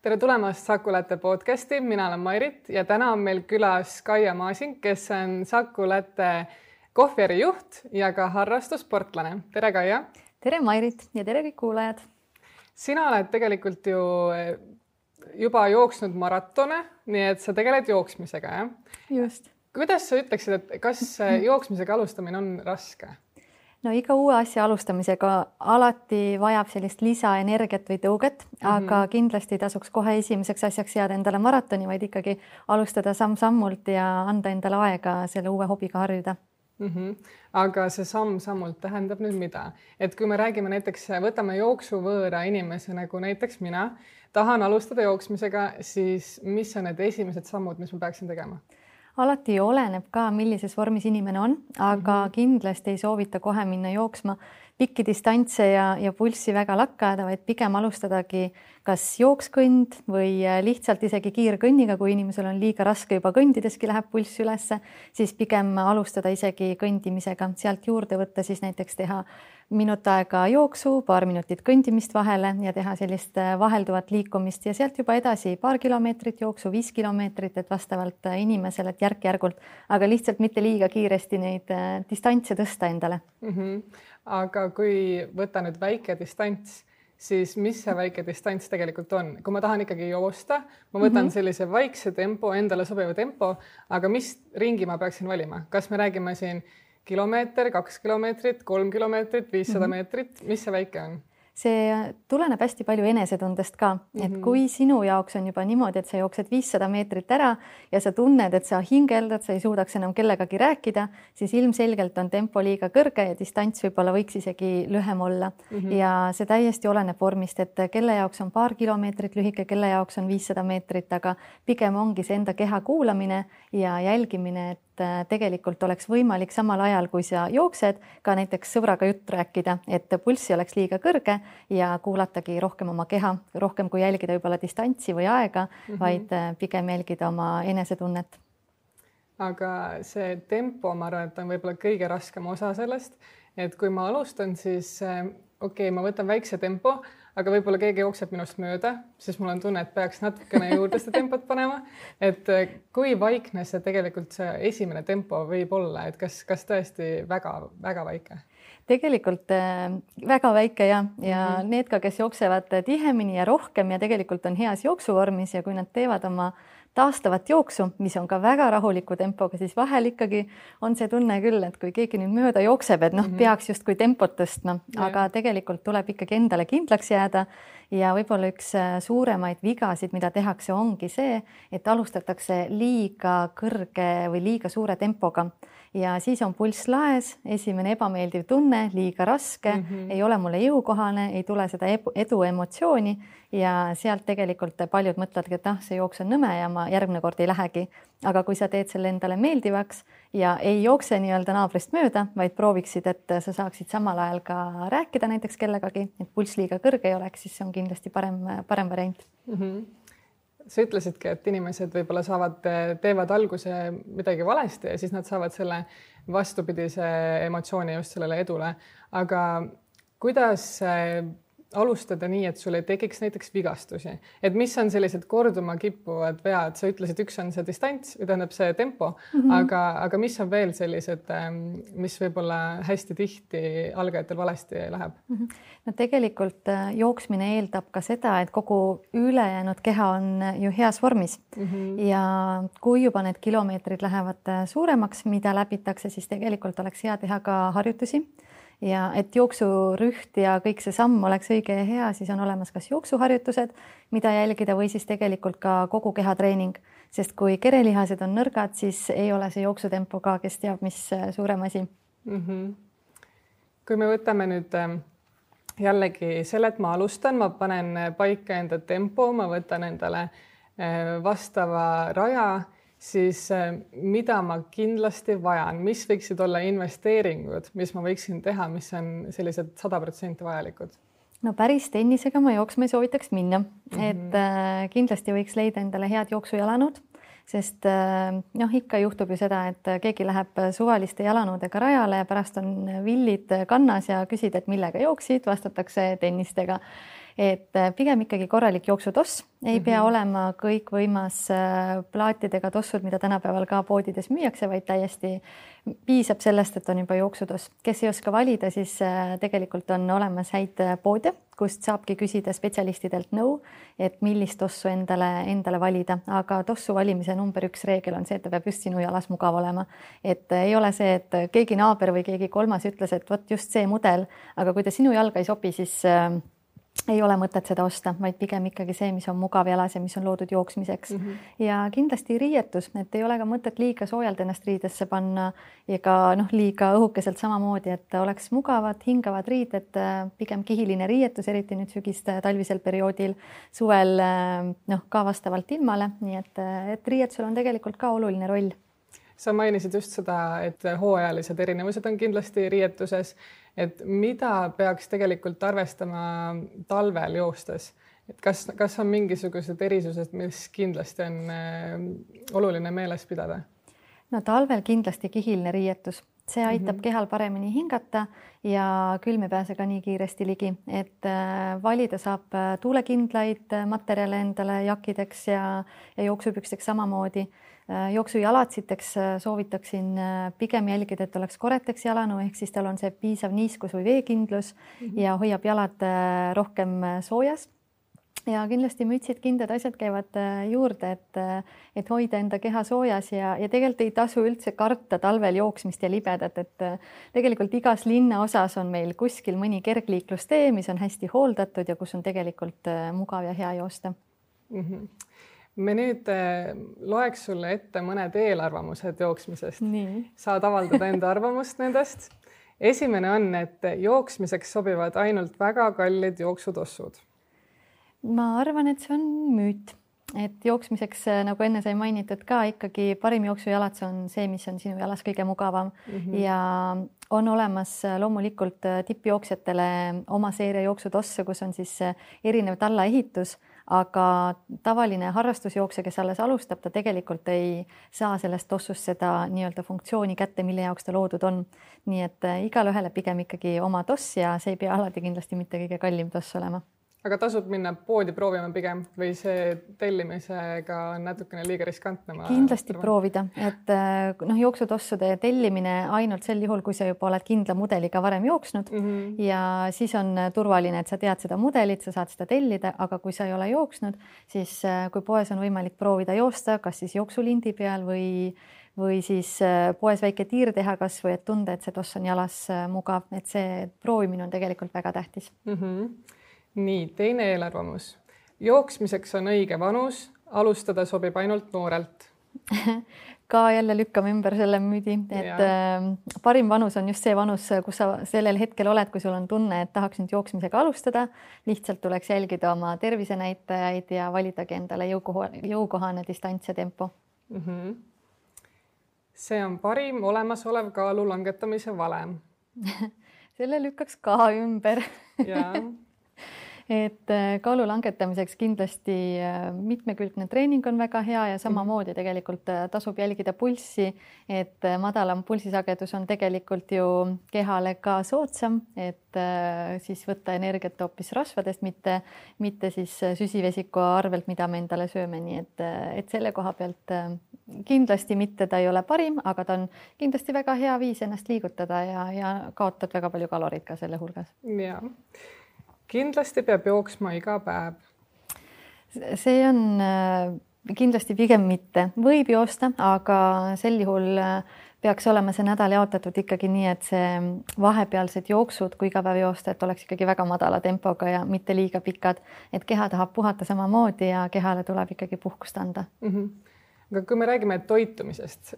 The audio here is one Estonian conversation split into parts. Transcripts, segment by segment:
tere tulemast Saku Latte podcasti, mina olen Mairit ja täna on meil külas Kaia Masing, kes on Saku Latte kohvijärgi juht ja ka harrastussportlane. Tere Kaia! Tere Mairit ja tere kõik kuulajad! Sina oled tegelikult ju juba jooksnud maratone, nii et sa tegeled jooksmisega, jah? Just. Kuidas sa ütleksid, et kas jooksmisega alustamine on raske? No iga uue asja alustamisega alati vajab sellist lisaenergiat või tõuget, aga kindlasti tasuks kohe esimeseks asjaks jääda endale maratoni, vaid ikkagi alustada samm-sammult ja anda endale aega selle uue hobiga harjuda. Aga see samm-sammult tähendab nüüd mida? Et kui me räägime näiteks, võtame jooksuvõõra inimese nagu näiteks mina, tahan alustada jooksmisega, siis mis on need esimesed sammud, mis ma peaksin tegema? Alati oleneb ka, millises vormis inimene on, aga kindlasti ei soovita kohe minna jooksma pikki distantse ja pulssi väga lakkada, vaid pigem alustadagi kas jookskõnd või lihtsalt isegi kiirkõnniga, kui inimesel on liiga raske juba kõndideski läheb pulss ülesse, siis pigem alustada isegi kõndimisega. Sealt juurde võtta siis näiteks teha minut aega jooksu, paar minutit kõndimist vahele ja teha sellist vahelduvat liikumist ja sealt juba edasi paar kilomeetrit jooksu, 5 kilomeetrit, et vastavalt inimesele, et järk-järgult, aga lihtsalt mitte liiga kiiresti neid distantse tõsta endale. Aga kui võtta nüüd väike distants, siis mis see väike distants tegelikult on? Kui ma tahan ikkagi joosta, ma võtan sellise vaikse tempo, endale sobiva tempo, aga mis ringi ma peaksin valima? Kas me räägime siin kilomeeter, 2 kilomeetrit, 3 kilomeetrit, 500 meetrit, mis see väike on? See tuleneb hästi palju enesetundest ka, et kui sinu jaoks on juba niimoodi, et sa jooksed 500 meetrit ära ja sa tunned, et sa hingeldad, sa ei suudaks enam kellegagi rääkida, siis ilmselgelt on tempo liiga kõrge ja distants võib-olla võiks isegi lühem olla. Ja see täiesti oleneb vormist, et kelle jaoks on paar kilomeetrit lühike, kelle jaoks on 500 meetrit, aga pigem ongi see enda keha kuulamine ja jälgimine, et tegelikult oleks võimalik samal ajal, kui sa jooksed, ka näiteks sõbraga jutt rääkida, et pulssi oleks liiga kõrge ja kuulatagi rohkem oma keha, rohkem kui jälgida võib-olla distantsi või aega, vaid pigem jälgida oma enesetunnet. Aga see tempo, ma arvan, et on võib-olla kõige raskem osa sellest, et kui ma alustan, siis ma võtan väikse tempo, aga võib-olla keegi jookseb minust mööda, siis mul on tunne, et peaks natukene juurde seda tempot panema. Et kui vaikne see tegelikult see esimene tempo võib olla, et kas tõesti väga väike? Tegelikult väga väike ja need ka, kes jooksevad tihemini ja rohkem ja tegelikult on heas jooksuvormis ja kui nad teevad oma taastavat jooksu, mis on ka väga rahuliku tempoga, siis vahel ikkagi on see tunne küll, et kui keegi nüüd mööda jookseb, et peaks justkui tempot tõstma, aga tegelikult tuleb ikkagi endale kindlaks jääda ja võib-olla üks suuremaid vigasid, mida tehakse, ongi see, et alustatakse liiga kõrge või liiga suure tempoga ja siis on pulss laes, esimene ebameeldiv tunne, liiga raske, ei ole mulle jõukohane, ei tule seda edu emotsiooni ja sealt tegelikult paljud mõtledki, et see jooks on nõme ja ma järgmine kord ei lähegi. Aga kui sa teed selle endale meeldivaks ja ei jookse nii-öelda naabrist mööda, vaid prooviksid, et sa saaksid samal ajal ka rääkida näiteks kellegagi, et pulss liiga kõrge ei oleks, siis see on kindlasti parem variant. Sa ütlesidki, et inimesed võib-olla teevad alguse midagi valesti ja siis nad saavad selle vastupidise emotsiooni just sellele edule. Aga kuidas alustada nii, et sul ei tekiks näiteks vigastusi? Et mis on sellised korduma kippuvad vead? Sa ütlesid, üks on see distants, tähendab see tempo, aga mis on veel sellised, mis võib-olla hästi tihti algajatel valesti läheb? No tegelikult jooksmine eeldab ka seda, et kogu ülejäänud keha on ju heas vormis ja kui juba need kilomeetrid lähevad suuremaks, mida läbitakse, siis tegelikult oleks hea teha ka harjutusi. Ja et jooksurüht ja kõik see samm oleks õige ja hea, siis on olemas kas jooksuharjutused, mida jälgida või siis tegelikult ka kogu kehatreening, sest kui kerelihased on nõrgad, siis ei ole see jooksutempo ka, kes teab, mis suurem asi. Kui me võtame nüüd jällegi selle, et ma alustan, ma panen paika enda tempo, ma võtan endale vastava raja, siis mida ma kindlasti vajan, mis võiksid olla investeeringud, mis ma võiksin teha, mis on sellised 100% vajalikud? No päris tennisega ma jooksma ei soovitaks minna, et kindlasti võiks leida endale head jooksujalanõud, sest ikka juhtub ju seda, et keegi läheb suvaliste jalanõudega rajale ja pärast on villid kannas ja küsid, et millega jooksid, vastatakse tennistega. et pigem ikkagi korralik jooksutoss, ei pea olema kõikvõimas plaatidega tossud, mida tänapäeval ka poodides müüakse, vaid täiesti piisab sellest, et on juba jooksutoss. Kes ei oska valida, siis tegelikult on olemas häid poode, kust saabki küsida spetsialistidelt nõu, et millist tossu endale valida, aga tossu valimise number 1 reegel on see, et ta peab just sinu jalas mugav olema. Et ei ole see, et keegi naaber või keegi kolmas ütles, et vot just see mudel, aga kui ta sinu jalga ei sobi, siis ei ole mõtet seda osta, vaid pigem ikkagi see, mis on mugav jalas ja mis on loodud jooksmiseks. Ja kindlasti riietus, et ei ole ka mõtet liiga soojalt ennast riidesse panna ega liiga õhukeselt samamoodi, et oleks mugavad, hingavad riided, pigem kihiline riietus, eriti nüüd sügist talvisel perioodil, suvel ka vastavalt ilmale, nii et riietusel on tegelikult ka oluline roll. Sa mainisid just seda, et hooajalised erinevused on kindlasti riietuses, et mida peaks tegelikult arvestama talvel joostes? Et kas on mingisugused erisused, mis kindlasti on oluline meeles pidada? No talvel kindlasti kihiline riietus. See aitab kehal paremini hingata ja külm ei pääse ka nii kiiresti ligi, et valida saab tuulekindlaid materjale endale jakideks ja jooksupüksteks samamoodi. Jooksujalatsiteks soovitaksin pigem jälgida, et oleks koreteks jalanu, ehk siis tal on see piisav niiskus või veekindlus ja hoiab jalad rohkem soojas. Ja kindlasti mütsid, kindad, asjad käivad juurde, et hoida enda keha soojas ja tegelikult ei tasu üldse karta talvel jooksmist ja libedat, et tegelikult igas linnaosas on meil kuskil mõni kergliiklustee, mis on hästi hooldatud ja kus on tegelikult mugav ja hea joosta. Me nüüd loeks sulle ette mõned eelarvamused jooksmisest. Nii. Saad avaldada enda arvamust nendest. Esimene on, et jooksmiseks sobivad ainult väga kallid jooksutossud. Ma arvan, et see on müüt, et jooksmiseks, nagu enne sai mainitud ka, ikkagi parim jooksujalats on see, mis on sinu jalas kõige mugavam ja on olemas loomulikult tippjooksjatele oma seeria jooksutosse, kus on siis erinev tallaehitus, aga tavaline harrastusjooksja, kes alles alustab, ta tegelikult ei saa sellest tossust seda nii-öelda funktsiooni kätte, mille jaoks ta loodud on. Nii et igal ühele pigem ikkagi oma toss ja see ei pea alati kindlasti mitte kõige kallim toss olema. Aga tasub minna poodi proovima pigem või see tellimisega on natukene liiga riskantne? Kindlasti proovida, et jooksutossude tellimine ainult sel juhul, kui sa juba oled kindla mudeliga varem jooksnud ja siis on turvaline, et sa tead seda mudelit, sa saad seda tellida, aga kui sa ei ole jooksnud, siis kui poes on võimalik proovida joosta, kas siis jooksulindi peal või siis poes väike tiir teha kas või et tunda, et see toss on jalas mugav, et see proovimine on tegelikult väga tähtis. Nii, teine eelarvamus. Jooksmiseks on õige vanus, alustada sobib ainult noorelt. Ka jälle lükkame ümber selle müüdi, et parim vanus on just see vanus, kus sa sellel hetkel oled, kui sul on tunne, et tahaks nüüd jooksmisega alustada. Lihtsalt tuleks jälgida oma tervisenäitajaid ja validagi endale jõukohane distants ja tempo. See on parim olemasolev kaalu langetamise valem. Selle lükkaks ka ümber. Et kaalu langetamiseks kindlasti mitmekülgne treening on väga hea ja samamoodi tegelikult tasub jälgida pulssi, et madalam pulsisagedus on tegelikult ju kehale ka soodsam, et siis võtta energiat hoopis rasvadest, mitte siis süsivesiku arvelt, mida me endale sööme, nii et selle koha pealt kindlasti mitte ta ei ole parim, aga ta on kindlasti väga hea viis ennast liigutada ja kaotad väga palju kaloreid ka selle hulgas. Jaa. Kindlasti peab jooksma iga päev. See on kindlasti pigem mitte. Võib joosta, aga sel juhul peaks olema see nädal jaotatud ikkagi nii, et see vahepealsed jooksud, kui iga päev joosta, et oleks ikkagi väga madala tempoga ja mitte liiga pikad, et keha tahab puhata samamoodi ja kehale tuleb ikkagi puhkust anda. Aga kui me räägime toitumisest,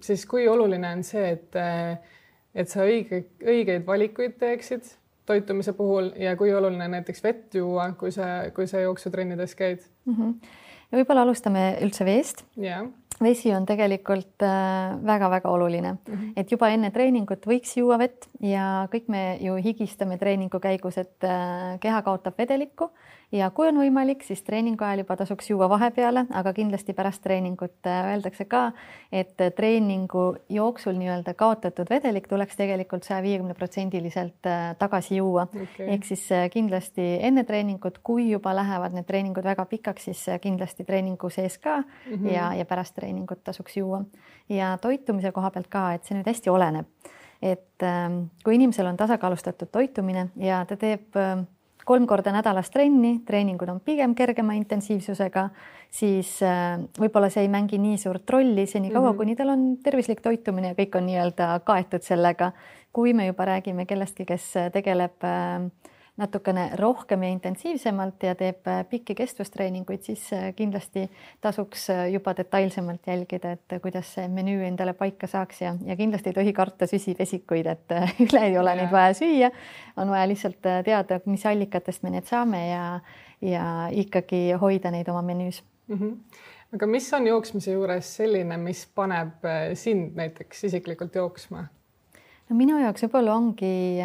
siis kui oluline on see, et sa õigeid valikuid teeksid toitumise puhul ja kui oluline näiteks vett juua, kui sa jooksutrennides käid? Ja võib-olla alustame üldse veest. Vesi on tegelikult väga-väga oluline, et juba enne treeningut võiks juua vett ja kõik me ju higistame treeningu käigus, et keha kaotab vedelikku ja kui on võimalik, siis treeningu ajal juba tasuks juua vahepeale, aga kindlasti pärast treeningut öeldakse ka, et treeningu jooksul nii-öelda kaotatud vedelik tuleks tegelikult 150% tagasi juua. Ehk siis kindlasti enne treeningut, kui juba lähevad need treeningud väga pikaks, siis kindlasti treeningu sees ka ja pärast treeningut tasuks juua. Ja toitumise koha pealt ka, et see nüüd hästi oleneb. Et kui inimesel on tasakaalustatud toitumine ja ta teeb 3 korda nädalas trenni, treeningud on pigem kergema intensiivsusega, siis võib-olla see ei mängi nii suurt rolli seni kaua, kuni tal on tervislik toitumine ja kõik on nii-öelda kaetud sellega. Kui me juba räägime kellestki, kes tegeleb natukene rohkem ja intensiivsemalt ja teeb pikki kestvustreeninguid, siis kindlasti tasuks juba detailsemalt jälgida, et kuidas see menüü endale paika saaks ja kindlasti ei tohi karta süsivesikuid, et üle ei ole neid vaja süüa. On vaja lihtsalt teada, mis allikatest me need saame ja ikkagi hoida neid oma menüüs. Aga mis on jooksmise juures selline, mis paneb sind näiteks isiklikult jooksma? No minu jaoks võib-olla ongi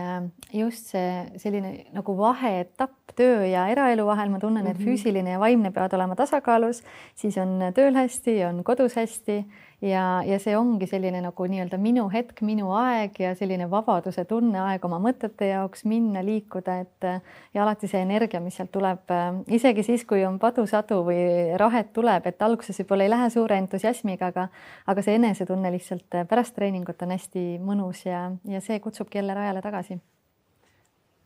just see selline nagu vaheetapp töö ja eraelu vahel. Ma tunnen, et füüsiline ja vaimne peavad olema tasakaalus, siis on tööl hästi, on kodus hästi ja see ongi selline nagu nii-öelda minu hetk, minu aeg ja selline vabaduse tunne aeg oma mõtete jaoks minna, liikuda, ja alati see energia, mis sealt tuleb, isegi siis, kui on padusadu või rahet tuleb, et alguses võib-olla ei lähe suure entusiasmiga, aga see enesetunne lihtsalt pärast treeningut on hästi mõnus ja see kutsubki jälle rajale tagasi.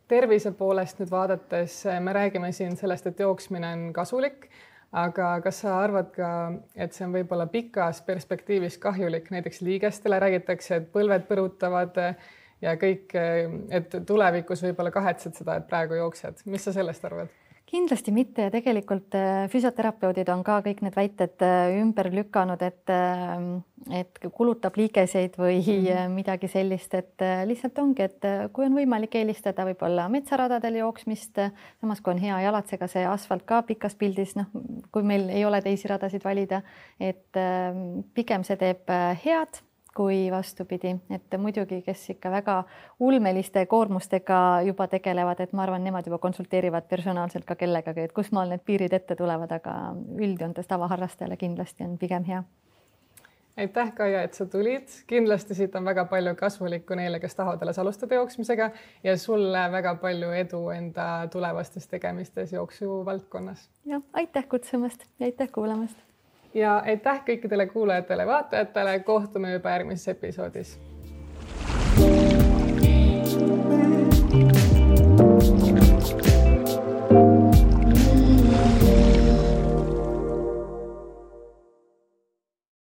Tervise poolest nüüd vaadates me räägime siin sellest, et jooksmine on kasulik, aga kas sa arvad ka, et see on võib-olla pikas perspektiivis kahjulik, näiteks liigestele räägitakse, et põlved põrutavad ja kõik, et tulevikus võib-olla kahetsed seda, et praegu jooksed. Mis sa sellest arvad? Kindlasti mitte ja tegelikult füsioterapeudid on ka kõik need väited ümber lükanud, et kulutab liigeseid või midagi sellist, et lihtsalt ongi, et kui on võimalik eelistada võib-olla metsaradadel jooksmist, samas kui on hea jalatsega see asfalt ka pikas pildis, kui meil ei ole teisi radasid valida, et pigem see teeb head kui vastupidi, et muidugi, kes ikka väga ulmeliste koormustega juba tegelevad, et ma arvan, nemad juba konsulteerivad personaalselt ka kellegagi, et kus maal need piirid ette tulevad, aga üldjoontes tavaharrastajale kindlasti on pigem hea. Aitäh, Kaia, et sa tulid. Kindlasti siit on väga palju kasulikku neile, kes tahavad alles alustada jooksmisega ja sulle väga palju edu enda tulevastes tegemistes jooksu valdkonnas. Ja, aitäh kutsumast ja aitäh kuulamast. Ja aitäh kõikidele kuulajatele, vaatajatele. Kohtume juba järgmises episoodis.